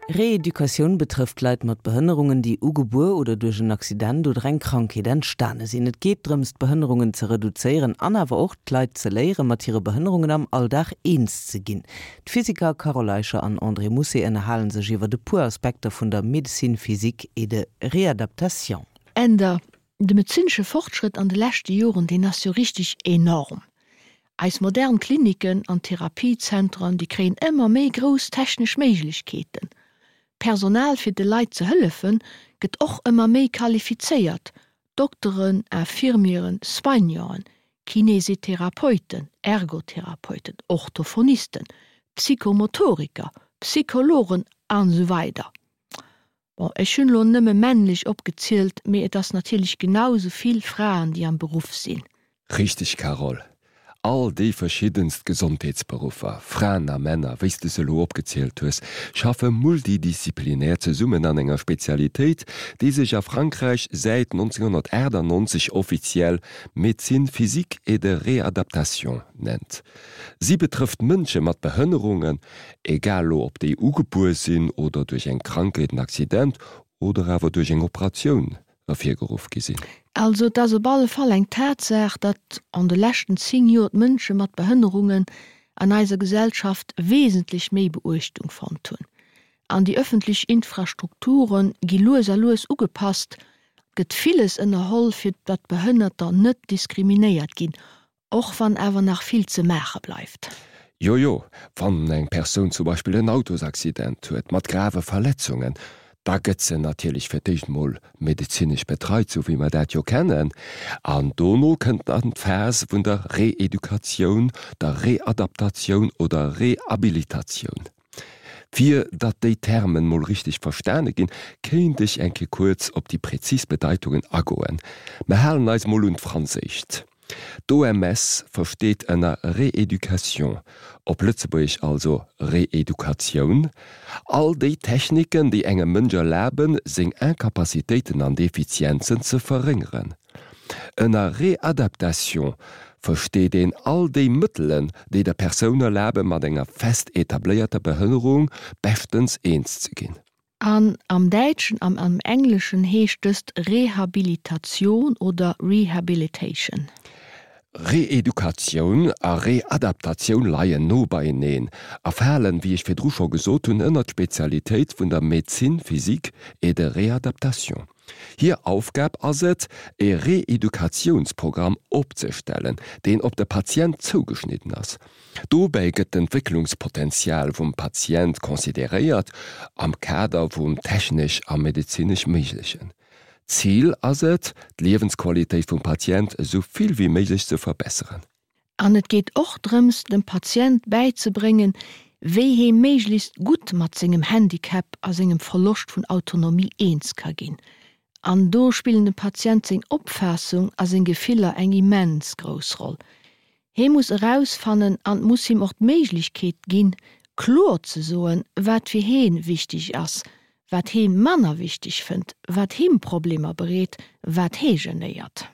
Reeducatioun betrëfft Leit mat Behënnerungen, déi ugebuer oder duerch en Accident oder eng Krankheet entstane sinn. Et geet drëms, d'Behënnerungen ze reduzéieren an awer och d'Leit ze léieren, mat hire Behënnerungen am Alldag eens ze ginn. D'Physiker Carole Eicher an André Mousset ënnerhale sech iwwert e puer Aspekter vun der Médecine physique et de réadaptation. Änder, De medezinesche Fortschrëtt an de leschte Joren, deen ass jo richteg enorm. Eis modern Kliniken an Therapiezentren, déi kréien ëmmer méi grouss technesch Méiglechkeeten. D'Personal fir de Leit ze hëllefen, gëtt och ëmmer méi qualifizéiert, Dokteren, Infirmieren, Soignanten, Kinesitherapeuten, Ergotherapeuten, Orthophonisten, Psychomotoriker, Psychologen an esou weider. Bon, ech hunn elo nëmme männlech opgezielt, mee et ass natierlech genau esou vill Fraen, déi am Beruff sinn. Richteg Carole. All déi verschiddenst Gesondheetsberuffer, Fraen a Männer, wéi s de se elo opgezielt hues, schaffe multidisziplinär zesummen an enger Spezialitéit, déi sech a Frankräich säit 1998 offiziell Médecine physique et de réadaptation nennt. Si betrëfft Mënsche mat Behënnerungen, egal lo ob déi ugebuer sinn oder duerch eng Krankheet, en Accident oder awer duerch eng Operatioun ervirgeruff gi sinn. Also et ass op alle Fall eng Tatsaach, datt an de leschten 10 Joer d'Mënsche mat Behënnerungen an eiser Gesellschaft wesentlech méi Beuechtung fonnt hunn. An déi ëffentlech Infrastrukture gi lues a lues ugepasst, et gëtt villes ënnerholl, fir datt Behënnerter net diskriminéiert ginn, Och wann awer nach vill ze maache bleift. Jo, jo, wann eng Persoun zum Beispill en Autosaccident huet mat grave Verletzungen, da gëtt se natierlech fir d'éischt mol medezinesch betreit, sou wéi mer dat jo kennen, an dono kënnt dann d'Phas vun der Reeducatioun, der Readaptatioun oder Rehabilitatioun. Fir datt déi Termen mol richteg verstane ginn, kéint ech eng Kéier kuerz op déi präzis Bedeitungen agoen. Mer halen eis mol un d'Franséischt. D'OMS versteet ënner Rééducation, op Lëtzebuergesch also Reedukatioun, all déi Techniken, déi engem Mënsch erlaben, seng Incapacitéiten an Defizienzen ze verréngeren. Ënner Réadaptation versteet een all déi Mëttelen, déi der Persoun erlaben, mat enger fest etabléierter Behënnerung beschtens eens ze ginn. An am Däitschen an am Engleschen heescht dëst Rehabilitation oder Rehabilitation. Reedukatioun a Readaptatioun leien no beieneen a falen, wéi ech virdru scho gesot hunn, ënnert d'Spezialitéit vun der Médecine physique et de réadaptation. Hir Aufgab ass et, e Reedukatiounsprogramm opzestellen, deen op de Patient zougeschnidden ass. Dobäi gëtt d'Entwécklungspotenzial vum Patient consideréiert am Kader vum technesch a medezinesch Méiglechen. Zil ass et, d'Liewensqualitéit vum Patient esou vill wéi méiglech ze verbesseren. An et geet och drëms, dem Patient bäizebréngen, wéi hee méiglechst gutt mat sengem Handicap a sengem Verloscht vun Autonomie eens ka ginn. An do spillen dem Patient seng Opfaassung a seng Gefiller eng immens grouss Roll. Hee muss erausfannen an et muss him och d'Méiglechkeet ginn, kloer ze soen, wat fir hee wichteg ass, wat hee manner wichteg fënnt, wat him Problemer bereet, wat hee genéiert.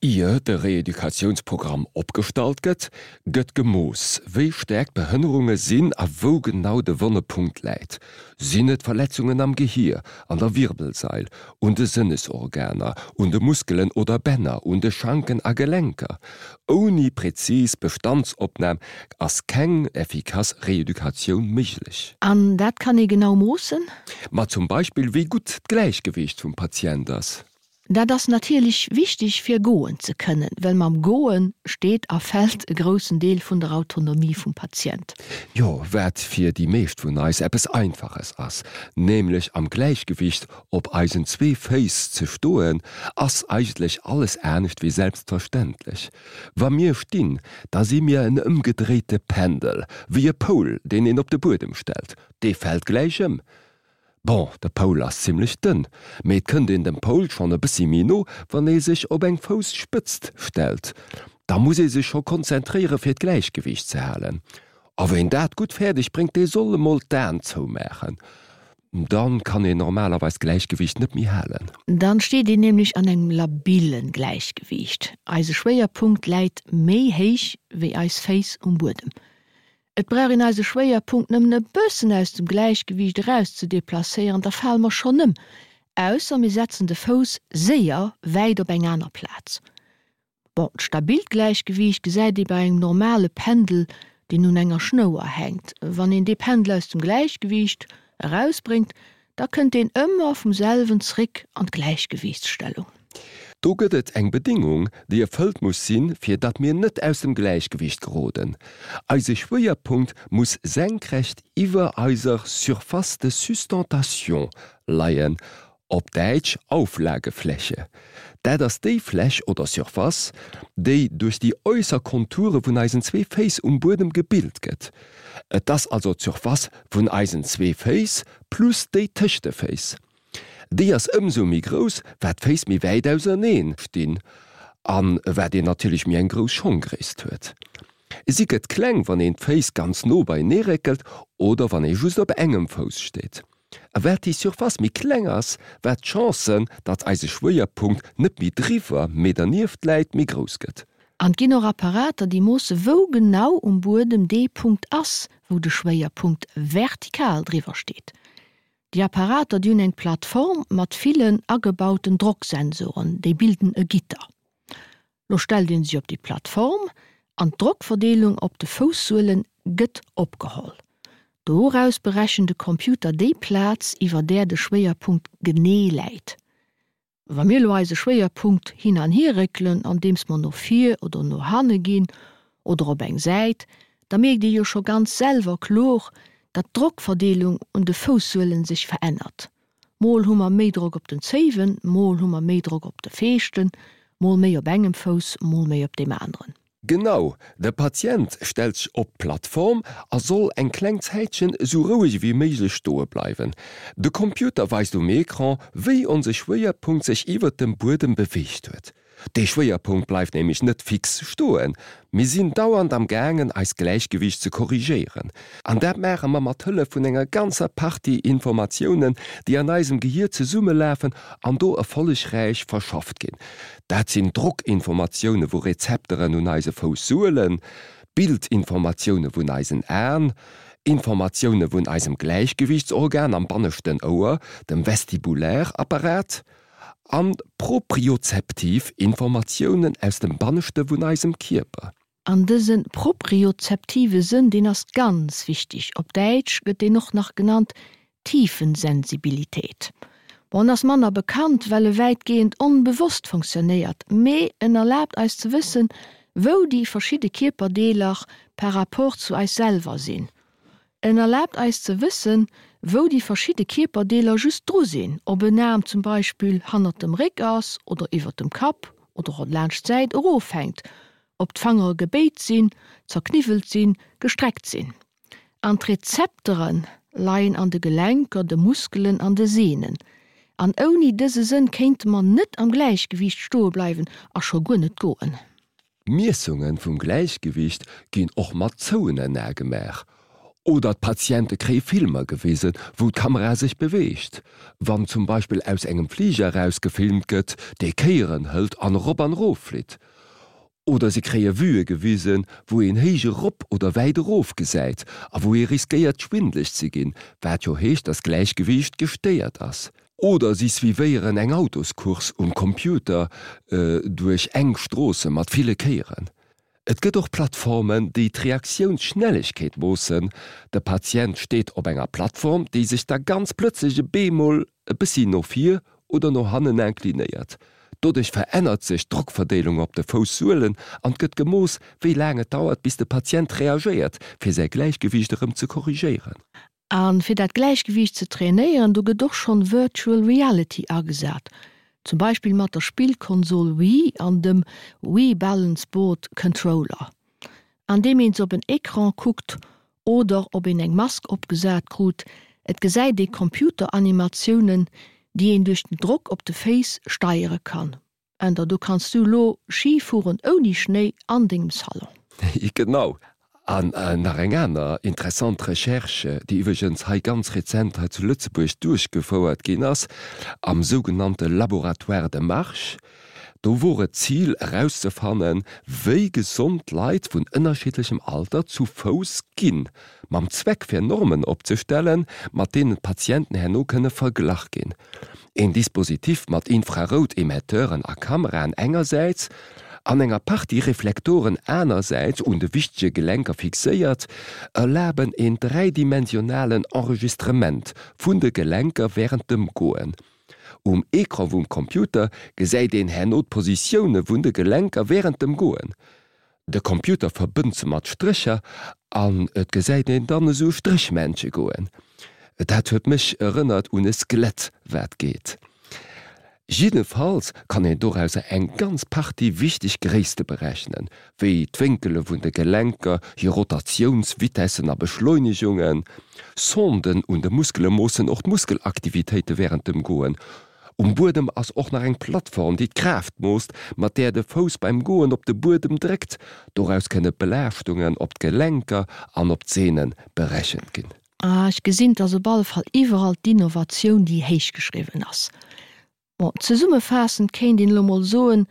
Ier de Reeducatiounsprogramm opgestallt gëtt, gëtt gemooss, wéi staark d'Behënnerunge sinn a wou genau de wonne Punkt läit. Sinn et Verletzungen am Gehier, an der Wirbelsail, un de Sënnesorganer, un de Muskelen oder Bänner, un de Schanken a Gelenker? Ouni prezis Bestandsopnam ass keng effikass Reeducatioun méiglech. An dat kann ee genau moossen? Ma zum Beispill wéi gutt d'Gläichgewiicht vum Patient ass. Dat ass natierlech wichteg fir goen ze kënnen, well mam Goe steet a fält e groussen Deel vun der Autonomie vum Patient. Jo, wat fir déi meescht vun eis eppes Einfaches ass, nämlech am Gläichgewicht op eisen zwee Féiss ze stoen, ass eigentlech alles anescht wéi selbstverständlech. Wa mir stinn, da si mir en ëmgedréite Pendel, wéi e Poul, deen een op de Buedem stellt, dee fält gläich ëm. Bon, de Poul ass zimlech dënn, mee et kënnt een dem Poul schonn e bëssi méi no, wann ee sech op eng Fousspëtzt stellt. Da muss ee sech scho konzentréiere fir d'Gläichgewiicht ze halen. A ween dat gutt fäerdeg bréngt, dee soll emol d'Aen zoumaachen. Dann kann een normalerweis d'Gläichgewiicht net méi halen. Dann steet een nämlech an engem labillen Gläichgewiicht. Eise Schwéierpunkt läit méi héich wéi eis Féiss um Buedem. Et brauch een eise Schwéierpunkt nëmmen e bëssen aus dem Gläichgewiicht eraus ze deplacéieren, da fale mer schonn ëm, ausser mir setzen de Fouss séier wäit op eng aner Plaz. Bon, d'stabilt Gläichgewiicht gesäit ee bei engem normale Pendel, deen un enger Schnouer hänkt. Wann een dee Pendel aus dem Gläichgewiicht erausbréngt, da kënnt deen ëmmer vum selwen zréck an d'Gläichgewiichtsstellung. Do gëtt et eng Bedingung, déi erfëllt muss sinn, fir datt mir net aus dem Gläichgewiicht geroden. Eise Schwéierpunkt muss senkrecht iwwer eiser Surface de sustentation leien, op Däitsch Auflagefläche. Dat ass déi Fläch oder Surface, déi duerch déi äusser Konture vun eisen zwee Féiss um Buedem gebilt gëtt. Et ass also d'Surface vun eisen zwee Féiss plus déi tëscht de Féiss. Déi ass ëmsou méi grouss, wat d'Féiss méi wäit auserneen stinn a wat een natierlech méi eng grouss Schonggréisst huet. Si gëtt kleng, wann een d'Féiss ganz no beienee réckelt oder wann ee just op engem Fouss steet. A wat déi Surface méi kleng ass, wat d'Chance, datt eise Schwéierpunkt net méi driwwer, mee dernieft läit, méi grouss gëtt. An et ginn och Apparater, déi moosse wou genau um Buedem dee Punkt ass, wou de Schwéierpunkt vertikal driwwer steet. Déi Apparater, déi hunn eng Plattform mat villen agebauten Drocksensoren, déi bilden e Gitter. Lo stellt een sech op déi Plattform an d'Drockverdeelung op de Foussuelen gëtt opgeholl. Doraus berechent de Computer déi Plaz iwwer där de Schwéierpunkt genee läit. Wa mir lo eise Schwéierpunkt hin an hier réckelen andeems mer no vir oder no hanne ginn oder op eng Säit, da mierkt ee jo scho ganz selwer kloer, datt d'Drockverdeelung un de Foussuelen sech verännert. Mol hu mer méi Drock op den Zéiwen, mol hu mer méi Drock op de Feeschten, mol méi op engem Fouss, mol méi op deem aneren. Genau, de Patient stellt sech op d'Plattform a soll eng kleng Zäitchen esou roueg ewéi méiglech stoe bleiwen. De Computer weist um Ecran, wéi onse Schwéierpunkt sech iwwert dem Buedem beweegt huet. Dee Schwéierpunkt bleift nämlech net fix stoen. Mir sinn dauernd am gaangen eist Gläichgewiicht ze korrigéieren. An dat maache mer mat Hëllef vun enger ganzer Partie Informatiounen, déi an eisem Gehier zesummelafen an do erfollegräich verschafft ginn. Dat sinn Drockinformatioune vu Rezepteren un eise Foussuelen, Bildinformatioune vun eisen Aen, Informatioune vun eisem Gläichgewiichtsorgan am banneschten Ouer, dem Vestibulärapparat, An propriozeptiv Informatiounen aus dem Banneschte vun eisem Kierper. An dëse propriozeptive Sënn, deen ass ganz wichteg. Op Däitsch gëtt deen och nach genannt Tiefensensibilität. Bon, en ass manner bekannt, well e wäitgehend onbewosst funktionéiert, mee en erlaabt eis ze wëssen, wou déi verschidde Kierperdeeler par rapport zu eis selwer sinn. En erlaabt eis ze wëssen, wou déi verschidde Kierperdeeler just dru sinn, ob en Aarm zum Beispill hannert dem Réck ass oder iwwert dem Kapp oder och laanscht d'Säit erofhänkt, ob d'Fangere gebéit sinn, zerkniwwelt sinn, gestreckt sinn. An d'Rezeptere leien an de Gelenker, de Muskelen an de Sehnen. An ouni dëse Sënn kéinte mer net am Gläichgewiicht stoe bleiwen a scho guer net goen. Miessunge vum Gläichgewiicht ginn och mat zouenen Ae gemaach. Oder d'Patiente kréie Filmer gewisen, wou d'Kamera sech beweegt. Wann zum Beispill aus engem Fliger eraus gefilmt gëtt, dee Kéieren hëlt an erop an erof flitt. Oder se kréie Vuë gewisen, wou een héich erop oder wäit erof gesäit a wou ee riskéiert schwindeleg ze ginn, wat jo heescht, dass d'Gläichgewiicht gestéiert ass. Oder si suivéieren eng Autoscourse um Computer duerch enk Stroosse mat ville Kéieren. Et gëtt och Plattformen, déi d'Reaktiounsschnellegkeet moossen. De Patient steet op enger Plattform, déi sech da ganz plëtzlech e beemol e bëssi no vir oder no hannen inclinéiert. Doduerch verännert sech d'Drockverdeelung op de Foussuelen an et gëtt gemooss, wéi laang et dauert, bis de Patient reagéiert, fir säi Gläichgewiicht erëm ze korrigéieren. A fir dat Gläichgewiicht ze trainéieren, do gëtt och schonn Virtual Reality agesat, zum Beispill mat der Spillkonsol Wii an dem Wii Balance Board Controller. Andeem een se op en Ecran kuckt oder ob een eng Mask opgesat krut, et gesäit ee Computeranimatiounen, déi een duerch den Drock op de Féiss steiere kann. Änder, do kanns du lo Ski fueren ouni Schnéi an dengem Salon. Genau. An nach eng aner interessant Recherche, déi iwwregens hei ganz rezent hei zu Lëtzebuerg duerchgefouert ginn ass, am sougenannte Laboratoire de marche. Do wor et d'Zil erauszefannen, wéi gesond Leit vun ënnerschiddlechem Alter zu Fouss ginn, mam Zweck fir Normen opzestellen, mat deenen d'Patienten herno kënne verglach ginn. Een Dispositif mat Infrarout-Emetteuren a Kameraen engersäits an enger Partie Reflektoren anersäits un de wichtege Gelenker fixéiert, erlaben een dräidimensionalen Enregistrement vun de Gelenker wärend dem Goen. Um Ecran vum Computer gesäit een herno d'Positioune vun de Gelenker wärend dem Goen. De Computer verbënnt se mat Strécher an et gesäit een dann esou Stréchmännche goen. Dat huet mech erënnert un e Skelett wat geet. Jiddefalls kann een dorauser eng ganz Partie wichteg Gréisste berechnen, wéi d'Wénkele vun de Gelenker, hir Rotatiounsvitessen a Beschleunegungen. Sonden un de Muskele moossen och d'Muskelaktivitéite wärend dem Goen. Um Buedem ass och nach eng Plattform, déi d'Kraaft moosst, mat där de Fouss beim Goen op de Buedem dréckt. Doraus kënne Belaaschtungen op d'Gelenker an op d'Seene berechent ginn. Ah, ech gesinn, dass op alle Fall iwwerall d'Innovatioun déi héich geschriwwen ass. Bon, zesummefaassend kéint een elo mol soen,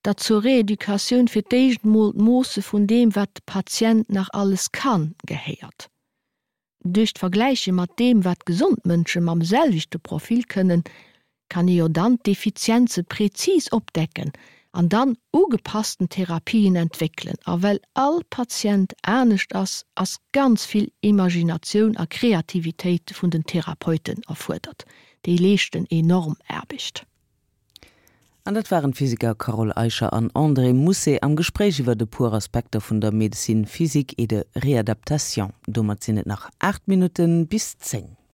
datt zur Rééducatioun fir d'éischt mol d'Moosse vun deem, wat de Patient nach alles kann, gehéiert. Duerch d'Vergläiche mat deem, wat gesond Mënsche mam selwechte Profil kënnen, kann ee jo dann d'Defizienze prezis opdecken an dann ugepassten Therapien entwéckelen. A well all Patient anescht ass, ass ganz vill Imaginatioun a Kreativitéit vun den Therapeuten erfuerdert. Déi leeschten enorm Aarbecht. An dat waren d'Physiker Carole Eicher an André Mousset am Gespréich iwwert e puer Aspekter vun der Médecine physique et de réadaptation. Domat sinn et nach 8 Minutten bis 10.